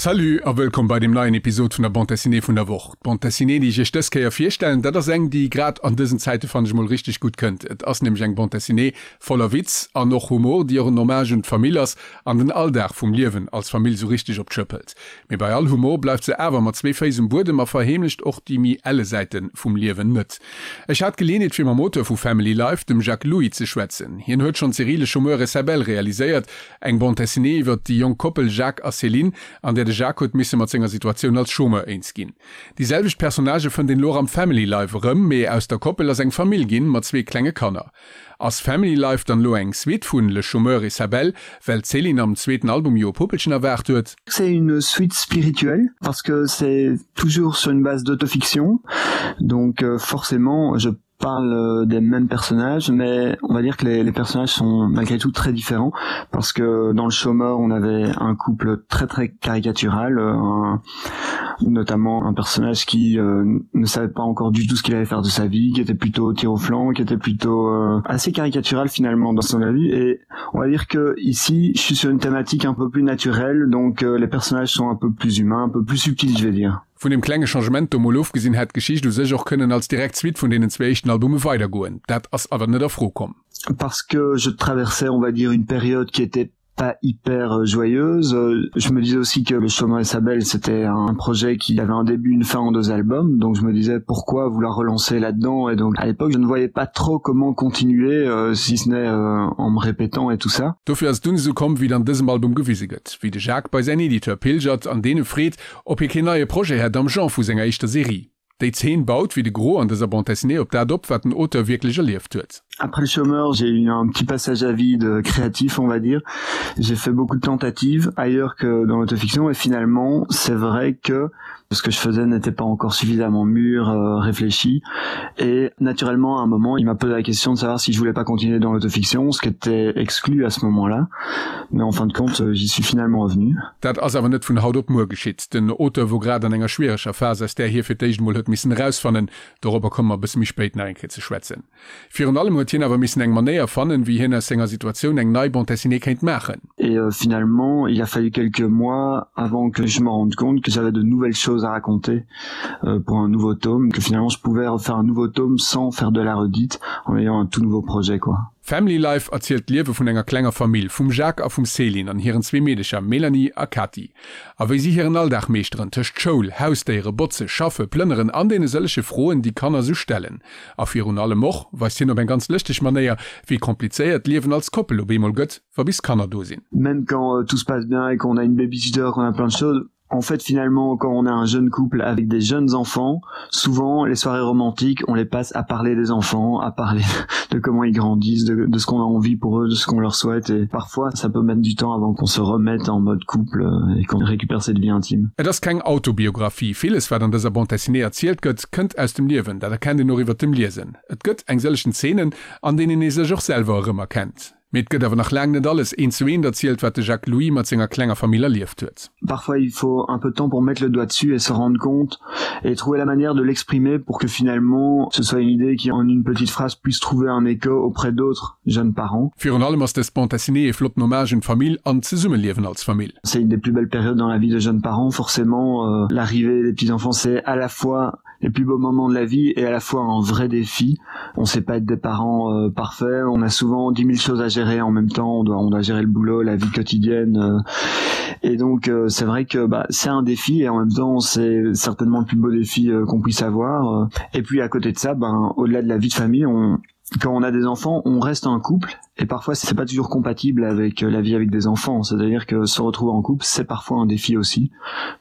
Salut a wëllkomm bei deem neien Episod vun der Bande Dessinée vun der Woch. D'Bande Dessinée, déi ech iech dës Kéier virstellen, dat ass eng, déi grad an dësen Zäite fannen ech mol richteg gutt kënnt. Et ass nämlech eng Bande Dessinée voller Witz an och Humor, déi och en Hommage un d'Famill ass an den Alldag vum Liewen als Famill sou richteg op d'Schëpp hëlt. Mee bei all Humor bleift se awer mat zwee Féiss um Buedem a verheemlecht och déi méi elle Säite vum Liewen net. Ech hat d'Geleeënheet fir mam Auteur vu Family Life, dem Jacques Louis, ze schwätzen. Hien huet schonn d'Serie Le Chômeur et sa belle realiséiert, Eng Bande dessinée iwwert déi jonk Koppel Jacques a Céline, an där de Jacques huet misse mat senger Situatioun als Chômeur eens ginn. Déi selwecht Personnagë fënnt een elo och am Family Life erëm, mee aus der Koppel ass eng Famill ginn, mat zwee klenge Kanner. Ass Family Life dann elo eng Suite vun Le Chômeur et sa belle, well d'Céline am zweeten Album jo e Puppelchen erwaart huet? C'est une suite spirituelle parce que c'est toujours sur une base d'autofiction, donc forcément je parle euh, des mêmes personnages mais on va dire que les, les personnages sont malgré tout très différents parce que dans le chômeur on avait un couple très très caricatural euh, un, notamment un personnage qui euh, ne savait pas encore du tout ce qu'il allait faire de sa vie qui était plutôt tir au flanc qui était plutôt euh, assez caricatural finalement dans son avis et on va dire que ici je suis sur une thématique un peu plus naturelle donc euh, les personnages sont un peu plus humains un peu plus subtils je vais dire Vun deem klenge Changement do mol ofgesinn, hätt d'Geschicht u sech och kënnen als direkt Suite vun deenen zwee éischten Albume weidergoen. Dat ass awer net a Fro komm. Parce que je traversais, on va dire, une période qui était pas hyper euh, joyeuse. Je me disais aussi que Le Chômeur et sa belle, c'était un projet qui avait un début, une fin en deux albums. Donc je me disais pourquoi vouloir relancer là-dedans. Et donc à l'époque, je ne voyais pas trop comment continuer, euh, si ce n'est euh, en me répétant et tout ça. Dofir ass et dunn esou komm, wéi et an dësem Album gewise gëtt, wéi de Jacques bei säin Editeur pilgert an deen e freet, ob hie keen neie Projet hätt am Genre vu senger éischter Serie. Déi Zeen baut, wéi de Gros an dëser Bande dessinée, op dat op, wat den Auteur wierklech erlieft huet. Après le chômeur, j'ai eu un petit passage à vide créatif, on va dire. J'ai fait beaucoup de tentatives ailleurs que dans l'autofiction et finalement, c'est vrai que ce que je faisais n'était pas encore suffisamment mûr, euh, réfléchi. Et naturellement, à un moment, il m'a posé la question de savoir si je voulais pas continuer dans l'autofiction, ce qui était exclu à ce moment-là. Mais en fin de compte, euh, j'y suis finalement revenu. Dat ass awer net vun haut op muer geschitt. Den Auteur wor grad an enger schwiereger Phas, aus där hie fir d'éischt emol huet missen erausfannen. Dorobber komme mer e bësse méi spéit nach eng Kéier ze schwätzen. Virun allem huet hien awer missen eng Manéier fannen, wéi hien aus senger Situatioun eng nei Bande dessinée kéint maachen. Et finalement, il a fallu quelques mois avant que je me rende compte que j'avais de nouvelles choses à raconter pour un nouveau tome, que finalement je pouvais refaire un nouveau tome sans faire de la redite, en ayant un tout nouveau projet quoi. Family Life erzielt d'Liewe vun enger klenger Famill, vum Jacques a vum Céline an hiren zwee Meedecher Mélanie a Cathy. A wéi si hiren Alldag meeschteren, tëscht Schoul, Hausdéiere, Botze, Schaffe, Plënneren an deene sëllege Froen, déi Kanner sou stellen. A virun allem och weist hien op eng ganz lëschteg Manéier, wéi komplizéiert d'Liewen als Koppel op eemol gëtt, wa bis Kanner do sinn. Même quand tout se passe bien et qu'on a une babysitter, qu'on a plein de choses, En fait, finalement, quand on a un jeune couple avec des jeunes enfants, souvent les soirées romantiques, on les passe à parler des enfants, à parler de comment ils grandissent, de, de ce qu'on a envie pour eux, de ce qu'on leur souhaite et parfois ça peut mettre du temps avant qu'on se remette en mode couple euh, et qu'on récupère cette vie intime. Et ass keng Autobiographie. Villes wat an dëser Bande dessinée erzielt gëtt, kënnt aus dem Liewen, dat erkennt een och iwwert dem Liesen. Et gëtt eng sëllegen Zeenen, an deenen ee sech och selwer erëmerkennt. Mee et gëtt awer nach laang net alles eent zu eent erzielt, wat de Jacques Louis mat senger klenger Famill erlieft huet. Parfois il faut un peu de temps pour mettre le doigt dessus et se rendre compte et trouver la manière de l'exprimer pour que finalement ce soit une idée qui en une petite phrase puisse trouver un écho auprès d'autres jeunes parents. Virun allem ass dës Bande dessinée ee flotten Hommage un d'Famill an d'Zesummeliewen als Famill. C'est une des plus belles périodes dans la vie de jeunes parents, forcément l'arrivée des petits enfants c'est à la fois les plus beaux moments de la vie et à la fois un vrai défi. On sait pas être des parents euh, parfaits, on a souvent 10 000 choses à gérer en même temps, on doit, on doit gérer le boulot, la vie quotidienne. Euh, et donc euh, c'est vrai que bah, c'est un défi et en même temps c'est certainement le plus beau défi euh, qu'on puisse avoir. Et puis à côté de ça, ben, au-delà de la vie de famille, on, quand on a des enfants, on reste un couple et parfois c'est pas toujours compatible avec euh, la vie avec des enfants c'est à dire que se retrouver en couple c'est parfois un défi aussi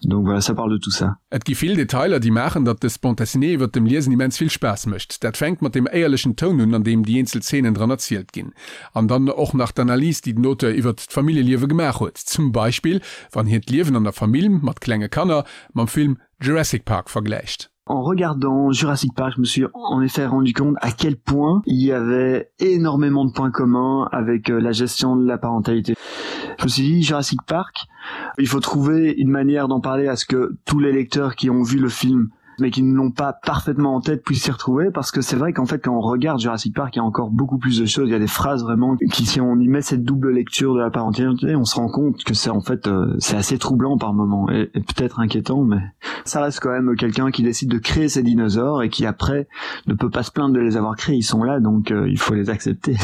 donc voilà ça parle de tout ça. Et gi vill Detailer déi maachen, datt dës Bande dessinée iwwert dem Liesen immens vill Spaass mécht. Dat fänkt mat dem éierlechen Toun un, an deem déi eenzel Zeenen dran erzielt ginn. An dann och nach d'Analys, déi den Auteur iwwert d'Familljeliewe gemaach huet. Zum Beispill wann hien d'Liewen an der Famill mat klenge Kanner mam Film Jurassic Park vergläicht. En regardant Jurassic Park, je me suis en effet rendu compte à quel point il y avait énormément de points communs avec euh, la gestion de la parentalité. Je me suis dit Jurassic Park, il faut trouver une manière d'en parler à ce que tous les lecteurs qui ont vu le film, mais qui ne l'ont pas parfaitement en tête puissent s'y retrouver parce que c'est vrai qu'en fait quand on regarde Jurassic Park il y a encore beaucoup plus de choses il y a des phrases vraiment qui si on y met cette double lecture de la parentalité on se rend compte que c'est en fait euh, c'est assez troublant par moment et, et peut-être inquiétant mais ça reste quand même quelqu'un qui décide de créer ces dinosaures et qui après ne peut pas se plaindre de les avoir créés ils sont là donc euh, il faut les accepter.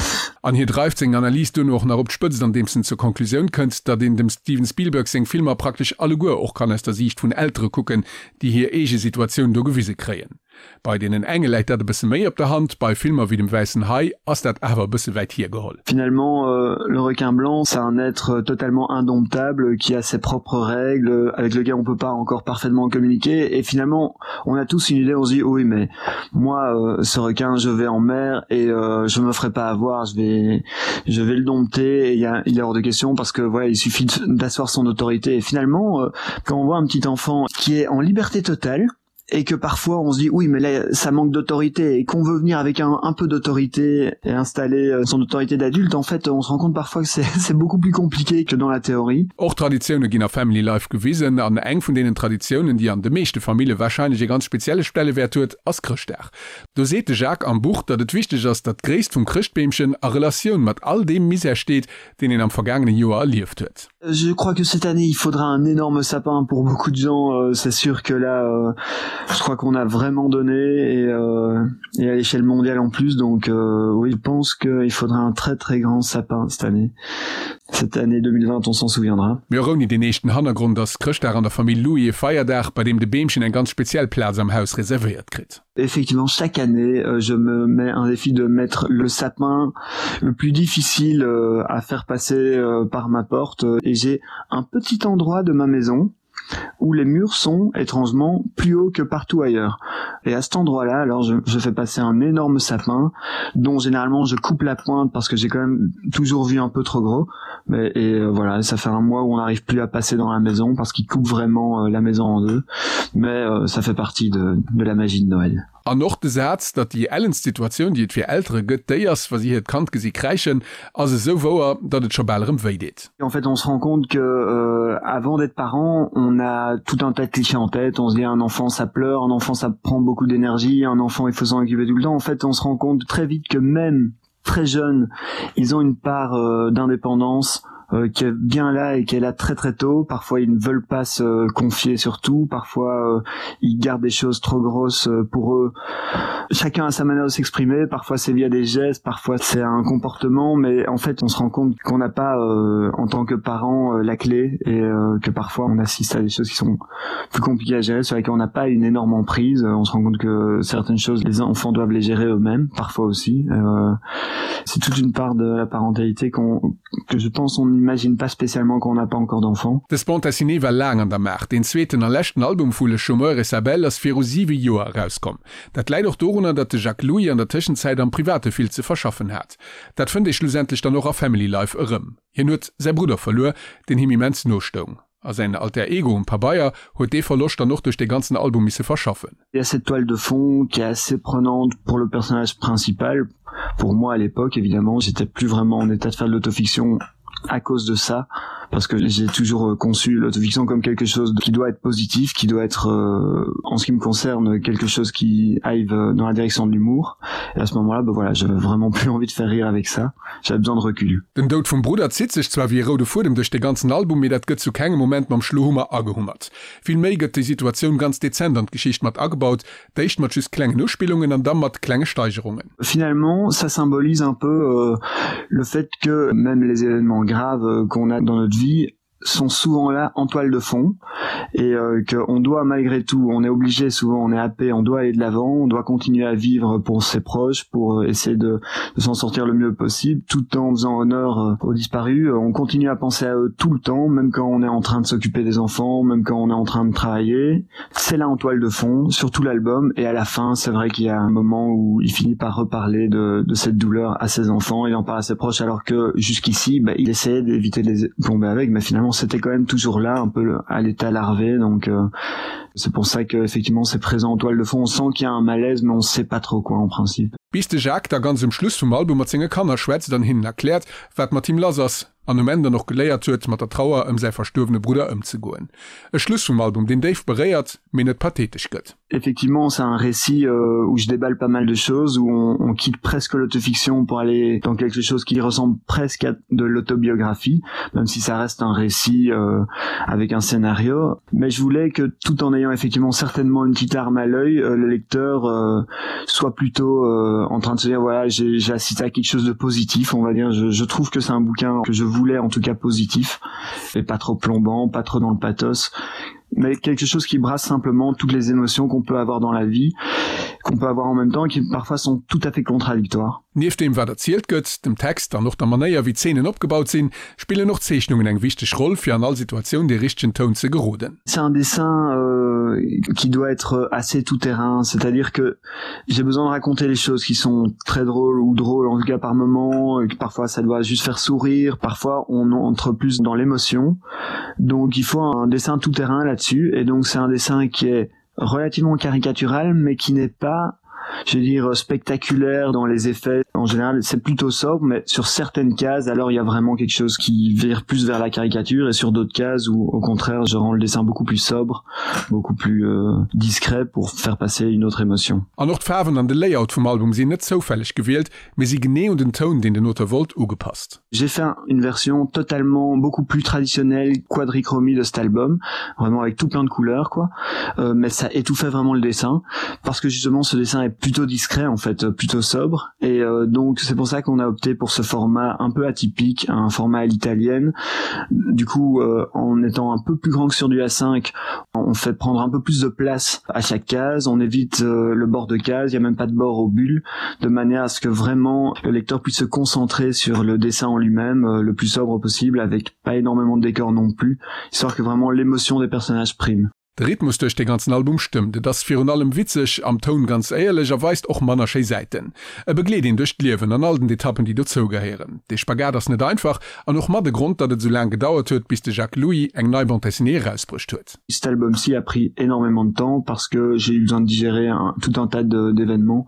An hie dreift seng Analys duerno och nach op d'Spëtzt andeems en zur Konklusioun kënnt, datt een dem Steven Spielberg seng Filmer praktesch alleguer och kann aus der Siicht vun Eltere kucken, déi hir eege Situatioun do gewise kréien. Bei deenen enge läit dat e bësse méi op der Hand, bei Filmer wéi dem Wäissen Hai ass dat awer e bësse wäit hiergeholl. Finalement, le requin blanc, c'est un être totalement indomptable qui a ses propres règles, avec lequel on peut pas encore parfaitement communiquer et finalement on a tous une idée, on se dit oui mais moi euh, ce requin je vais en mer et euh, je me ferai pas avoir, je vais je vais le dompter et il, y a, il est hors de question parce que voilà il suffit d'asseoir son autorité et finalement euh, quand on voit un petit enfant qui est en liberté totale, et que parfois on se dit oui mais là ça manque d'autorité et qu'on veut venir avec un, un peu d'autorité et installer euh, son autorité d'adulte en fait on se rend compte parfois que c'est beaucoup plus compliqué que dans la théorie. Och Traditioune ginn a Family Life gewisen, an eng vun deenen Traditiounen, déi an de meeschte Famille warscheinlech ee ganz spezielle Stellewäert huet, ass Chrëschtdag. Do seet de Jacques am Buch, datt et wichteg ass, datt d'Gréisst vum Chrëschtbeemchen a Relatioun mat all deem Misär steet, deen een am vergaangene Joer erlieft huet. Je crois que cette année il faudra un énorme sapin pour beaucoup de gens euh, c'est sûr que là euh, je crois qu'on a vraiment donné et, euh, et à l'échelle mondiale en plus donc euh, oui je pense qu'il faudra un très très grand sapin cette année cette année 2020 on s'en souviendra. Mee och ouni deen eeschten Hannergrond ass Chrëschtdag an der Famill Louis e Feierdag, bei deem de Beemchen eng ganz speziell Plaz am Haus reservéiert kritt. Effectivement chaque année euh, je me mets un défi de mettre le sapin le plus difficile euh, à faire passer euh, par ma porte et j'ai un petit endroit de ma maison où les murs sont étrangement plus haut que partout ailleurs. Et à cet endroit là alors je, je fais passer un énorme sapin dont généralement je coupe la pointe parce que j'ai quand même toujours vu un peu trop gros mais et euh, voilà ça fait un mois où on n'arrive plus à passer dans la maison parce qu'il coupe vraiment euh, la maison en deux mais euh, ça fait partie de, de la magie de Noël. An och de Saz, datt déi ellenst Situatioun, déi et fir Eltere gëtt, déi ass, wa si hiert Kand gesi kräischen, ass esou wouer, datt et scho bal erëm wéi deet. En fait, on se rend compte que euh, avant d'être parent, on a tout un tas de clichés en tête, on se dit un enfant ça pleure, un enfant ça prend beaucoup d'énergie, un enfant il faut s'en occuper tout le temps. En fait, on se rend compte très vite que même très jeune, ils ont une part euh, d'indépendance, euh, qui est bien là et qui est là très très tôt parfois ils ne veulent pas se confier surtout parfois euh, ils gardent des choses trop grosses euh, pour eux chacun a sa manière de s'exprimer parfois c'est via des gestes parfois c'est un comportement mais en fait on se rend compte qu'on n'a pas euh, en tant que parent euh, la clé et euh, que parfois on assiste à des choses qui sont plus compliquées à gérer sur lesquelles on n'a pas une énorme emprise on se rend compte que certaines choses les enfants doivent les gérer eux-mêmes parfois aussi euh, c'est toute une part de la parentalité qu'on que je pense on imagine pas spécialement qu'on n'a pas encore d'enfants. Dës Bande dessinée war laang an der Maach. Deen zweeten a leschten Album vu Le Chômeur et sa belle ass viru siwe Joer erauskomm. Dat läit och dorunner, datt de Jacques Louis an der Tëschenzäit am Private vill ze verschaffen hat. Dat fënnt ee schlussendlech dann och a Family Life erëm. Hien huet säi Brudder verluer, deen him immens no stoung. A säin Alter Ego um Pabeier huet dee Verloscht dann och duerch dee ganzen Album misse verschaffen. Il y a cette toile de fond qui est assez prenante pour le personnage principal. Pour moi à l'époque évidemment, j'étais plus vraiment en état de faire de l'autofiction à cause de ça parce que j'ai toujours euh, conçu l'autofiction comme quelque chose qui doit être positif, qui doit être euh, en ce qui me concerne quelque chose qui aille euh, dans la direction de l'humour. Et à ce moment-là, ben voilà, j'avais vraiment plus envie de faire rire avec ça. J'avais besoin de recul. Den Doud vum Brudder zitt sech zwar wéi e roude Fuedem duerch de ganzen Album, mee dat gëtt zu kengem Moment mam Schlohummer agehummert. Vill méi gëtt déi Situatioun ganz dezent an d'Geschicht mat agebaut, d'éischt mat just klengen Uspillungen an da mat klenge Steigerungen. Finalement, ça symbolise un peu euh, le fait que même les événements graves euh, qu'on a dans notre vie sont souvent là en toile de fond et euh, qu'on doit malgré tout on est obligé souvent on est happé on doit aller de l'avant on doit continuer à vivre pour ses proches pour euh, essayer de, de s'en sortir le mieux possible tout en faisant honneur euh, aux disparus euh, on continue à penser à eux tout le temps même quand on est en train de s'occuper des enfants même quand on est en train de travailler c'est là en toile de fond surtout l'album et à la fin c'est vrai qu'il y a un moment où il finit par reparler de, de cette douleur à ses enfants il en parle à ses proches alors que jusqu'ici bah, il essayait d'éviter de les plomber avec mais finalement c'était quand même toujours là un peu à l'état larvé donc euh, c'est pour ça que effectivement c'est présent en toile de fond on sent qu'il y a un malaise mais on sait pas trop quoi en principe. Bis de Jacques da ganz um Schluss vum Album mat senge Kanner schwätzt an hinnen erkläert, wat mat him lass ass. an um Enn dann och geléiert huet, mat der Trauer ëm säi verstuerwene Brudder ëmzegoen. E Schluss vum Album, deen déif beréiert, mee net pathetesch gëtt. Effectivement, c'est un récit euh, où je déballe pas mal de choses, où on, on quitte presque l'autofiction pour aller dans quelque chose qui ressemble presque à de l'autobiographie, même si ça reste un récit euh, avec un scénario. Mais je voulais que tout en ayant effectivement certainement une petite arme à l'œil, euh, le lecteur euh, soit plutôt euh, en train de se dire voilà j'ai assisté à quelque chose de positif, on va dire. Je, je trouve que c'est un bouquin que je voulais en tout cas positif et pas trop plombant, pas trop dans le pathos mais quelque chose qui brasse simplement toutes les émotions qu'on peut avoir dans la vie, qu'on peut avoir en même temps et qui parfois sont tout à fait contradictoires. Nieft deem wat erzielt gëtt, dem Text an och der Manéier wéi d'Zeenen opgebaut sinn, spillen och d'Zeechnungen eng wichteg Roll fir an all Situatioun dee richtegen Toun ze geroden. C'est un dessin euh, qui doit être assez tout terrain, c'est-à-dire que j'ai besoin de raconter les choses qui sont très drôles ou drôles en tout cas par moment, que parfois ça doit juste faire sourire, parfois on entre plus dans l'émotion. Donc il faut un dessin tout terrain là-dessus et donc c'est un dessin qui est relativement caricatural mais qui n'est pas je veux dire spectaculaire dans les effets en général c'est plutôt sobre mais sur certaines cases alors il y a vraiment quelque chose qui vire plus vers la caricature et sur d'autres cases où au contraire je rends le dessin beaucoup plus sobre beaucoup plus euh, discret pour faire passer une autre émotion An och d'Faarwen an de Layout vum Album sinn net zoufälleg gewielt, mee si genee un den Toun, deen den Auteur wollt, ugepasst. J'ai fait une version totalement beaucoup plus traditionnelle quadrichromie de cet album vraiment avec tout plein de couleurs quoi euh, mais ça étouffait vraiment le dessin parce que justement ce dessin est plutôt discret en fait plutôt sobre et euh, donc c'est pour ça qu'on a opté pour ce format un peu atypique un format à l'italienne du coup euh, en étant un peu plus grand que sur du A5 on fait prendre un peu plus de place à chaque case on évite euh, le bord de case il y a même pas de bord aux bulles de manière à ce que vraiment le lecteur puisse se concentrer sur le dessin en lui-même euh, le plus sobre possible avec pas énormément de décor non plus histoire que vraiment l'émotion des personnages prime. De Rhythmus duerch dee ganzen Album stëmmt, et ass virun allem witzeg, am Toun ganz éierlech a weist och manner schéi Säiten. E begleet een duerch d'Liewen an all den Etappen déi dozou gehéieren. Dee Spagat ass net einfach an och mat e Grond, datt et esou laang gedauert huet, bis de Jacques Louis eng nei Bande dessinée erausbruecht huet. Cet album-ci a pris énormément de temps parce que j'ai eu besoin de digérer un, tout un tas d'événements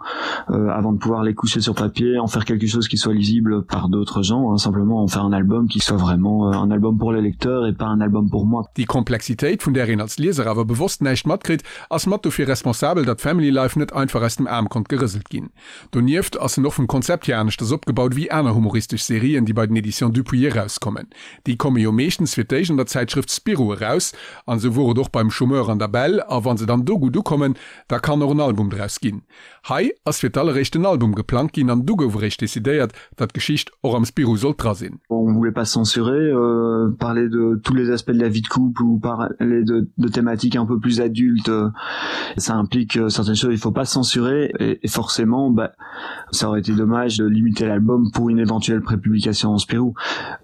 euh, avant de pouvoir les coucher sur papier, en faire quelque chose qui soit lisible par d'autres gens, hein, simplement en faire un album qui soit vraiment euh, un album pour les lecteurs et pas un album pour moi. Déi Komplexitéit, vun där een als Lieser awer bewosst näischt matkritt, ass mat dofir responsabel, datt Family Life net einfach aus dem Aarm konnt gerëselt ginn. Donieft ass en och vum Konzept hier aneschters opgebaut wéi aner humoristesch Serien, déi bei den Editions Dupuis erauskommen. Déi komme jo meeschtens fir d'éischt an der Zäitschrëft Spirou eraus, an esou wor et och beim Chômeur an der Belle, a wa se dann do gutt ukommen, da kann och en Album draus ginn. Hei ass fir d'alleréischt en Album geplangt ginn an du gouf eréischt decidéiert, datt d'Geschicht och am Spirou sollt dra sinn. On voulait pas censurer, euh, parler de tous les aspects de la vie de couple ou parler de, de thématiques un peu plus adultes, ça implique euh, certaines choses, il faut pas censurer et, et forcément bah, ça aurait été dommage de limiter l'album pour une éventuelle prépublication en Spirou.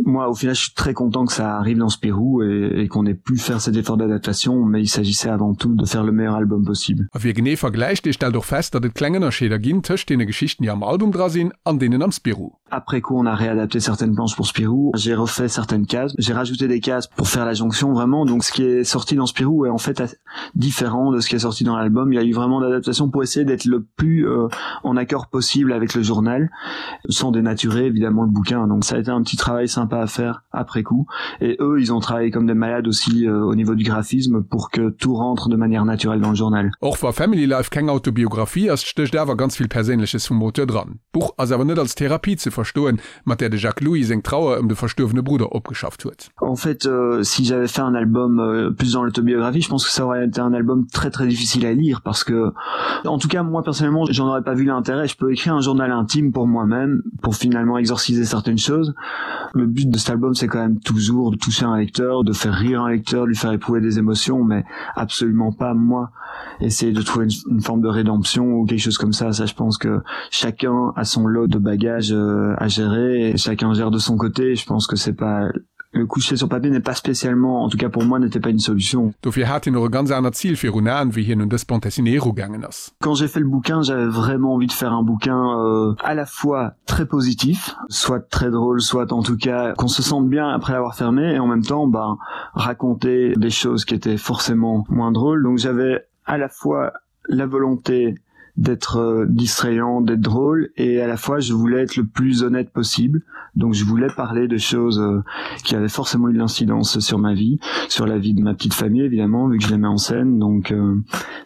Moi au final je suis très content que ça arrive dans Spirou et, et qu'on ait pu faire cet effort d'adaptation, mais il s'agissait avant tout de faire le meilleur album possible. A wie genee vergläicht, dee stellt och fest, datt et kleng Ënnerscheeder ginn tëscht deene Geschichten, déi am Album dra sinn, an deenen am Spirou. Après coup on a réadapté certaines planches pour Spirou, j'ai refait certaines cases, j'ai rajouté des cases pour faire la jonction vraiment donc ce qui est sorti dans Spirou est en fait différent de ce qui est sorti dans l'album. Il y a eu vraiment d'adaptation pour essayer d'être le plus euh, en accord possible avec le journal sans dénaturer évidemment le bouquin donc ça a été un petit travail sympa à faire après coup et eux ils ont travaillé comme des malades aussi euh, au niveau du graphisme pour que tout rentre de manière naturelle dans le journal. Och wa Family Life keng Autobiographie ass, stécht awer ganz vill Perséinleches vum Auteur dran. D'Buch ass awer net als Therapie ze verstoen, mat där de Jacques Louis seng Trauer ëm de verstuerwene Brudder opgeschafft huet. En fait euh, si j'avais fait un album euh, plus dans l'autobiographie, je pense que ça aurait été un album très très difficile à lire parce que en tout cas moi personnellement j'en aurais pas vu l'intérêt. Je peux écrire un journal intime pour moi-même pour finalement exorciser certaines choses. Le but de cet album c'est quand même toujours de toucher un lecteur, de faire rire un lecteur, de lui faire éprouver des émotions mais absolument pas moi essayer de trouver une, une forme de rédemption ou quelque chose comme ça ça je pense que chacun a son lot de bagages euh, à gérer et chacun gère de son côté je pense que c'est pas le coucher sur papier n'est pas spécialement en tout cas pour moi n'était pas une solution Dofir hat hien och e ganz anert Zil virun Aen, wéi hien un dës Bande dessinée erugaangen ass. Quand j'ai fait le bouquin, j'avais vraiment envie de faire un bouquin euh, à la fois très positif, soit très drôle, soit en tout cas qu'on se sente bien après l'avoir fermé et en même temps ben, raconter des choses qui étaient forcément moins drôles. Donc j'avais à la fois la volonté d'être euh, distrayant, d'être drôle et à la fois je voulais être le plus honnête possible. Donc je voulais parler de choses euh, qui avaient forcément eu de l'incidence sur ma vie, sur la vie de ma petite famille évidemment vu que je les mets en scène. Donc euh,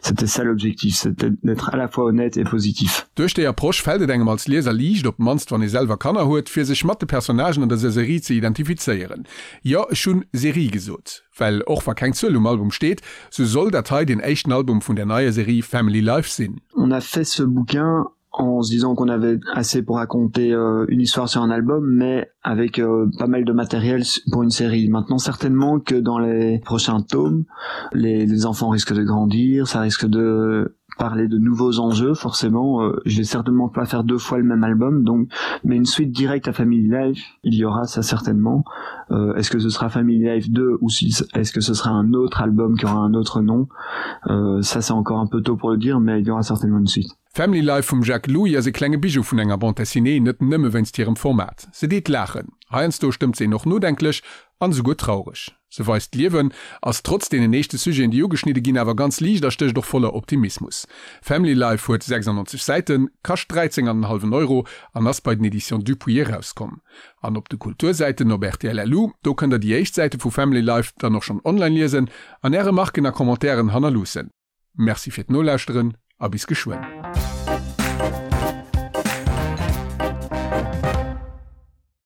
c'était ça l'objectif, c'était d'être à la fois honnête et positif. Duerch déi Approche fält et engem als Lieser liicht, op d'mannst wann ee selwer Kanner huet, fir sech mat de Personnagen an der Serie ze identifizéieren. Jo, ech hunn Serie gesot, well och wa keng Zuel um Album steet, sou soll dat hei deen éischten Album vun der neier Serie Family Life sinn. On a fait ce bouquin en se disant qu'on avait assez pour raconter euh, une histoire sur un album, mais avec euh, pas mal de matériel pour une série. Maintenant certainement que dans les prochains tomes, les, les enfants risquent de grandir, ça risque de parler de nouveaux enjeux forcément euh, je vais certainement pas faire deux fois le même album donc mais une suite directe à family life il y aura ça certainement euh, est-ce que ce sera family life 2 ou si est-ce que ce sera un autre album qui aura un autre nom euh, ça c'est encore un peu tôt pour le dire mais il y aura certainement une suite Family Life vum Jacques Louis ass e klenge Bijou vun enger Bande dessinée, net nëmme wéinst hirem Format. Se deet laachen, heiansdo stëmmt se een och nodenklech an esouguer traureg. Se weist d'Liewen ass trotz deenen eeschte Sujeten, déi ugeschnidde ginn, awer ganz liicht a stécht och voller Optimismus. Family Life huet 96 Säiten, kascht 13 an en hallwen Euro an ass bei den Editions Dupuis erauskomm. An op de Kultursäiten op rtl LU, do kënnt der déi éischt Säite vu Family Life dann och schonn online liesen an är Remarken a Commentairen hannerloossen. Merci fir d'Nolauschteren a bis geschwënn.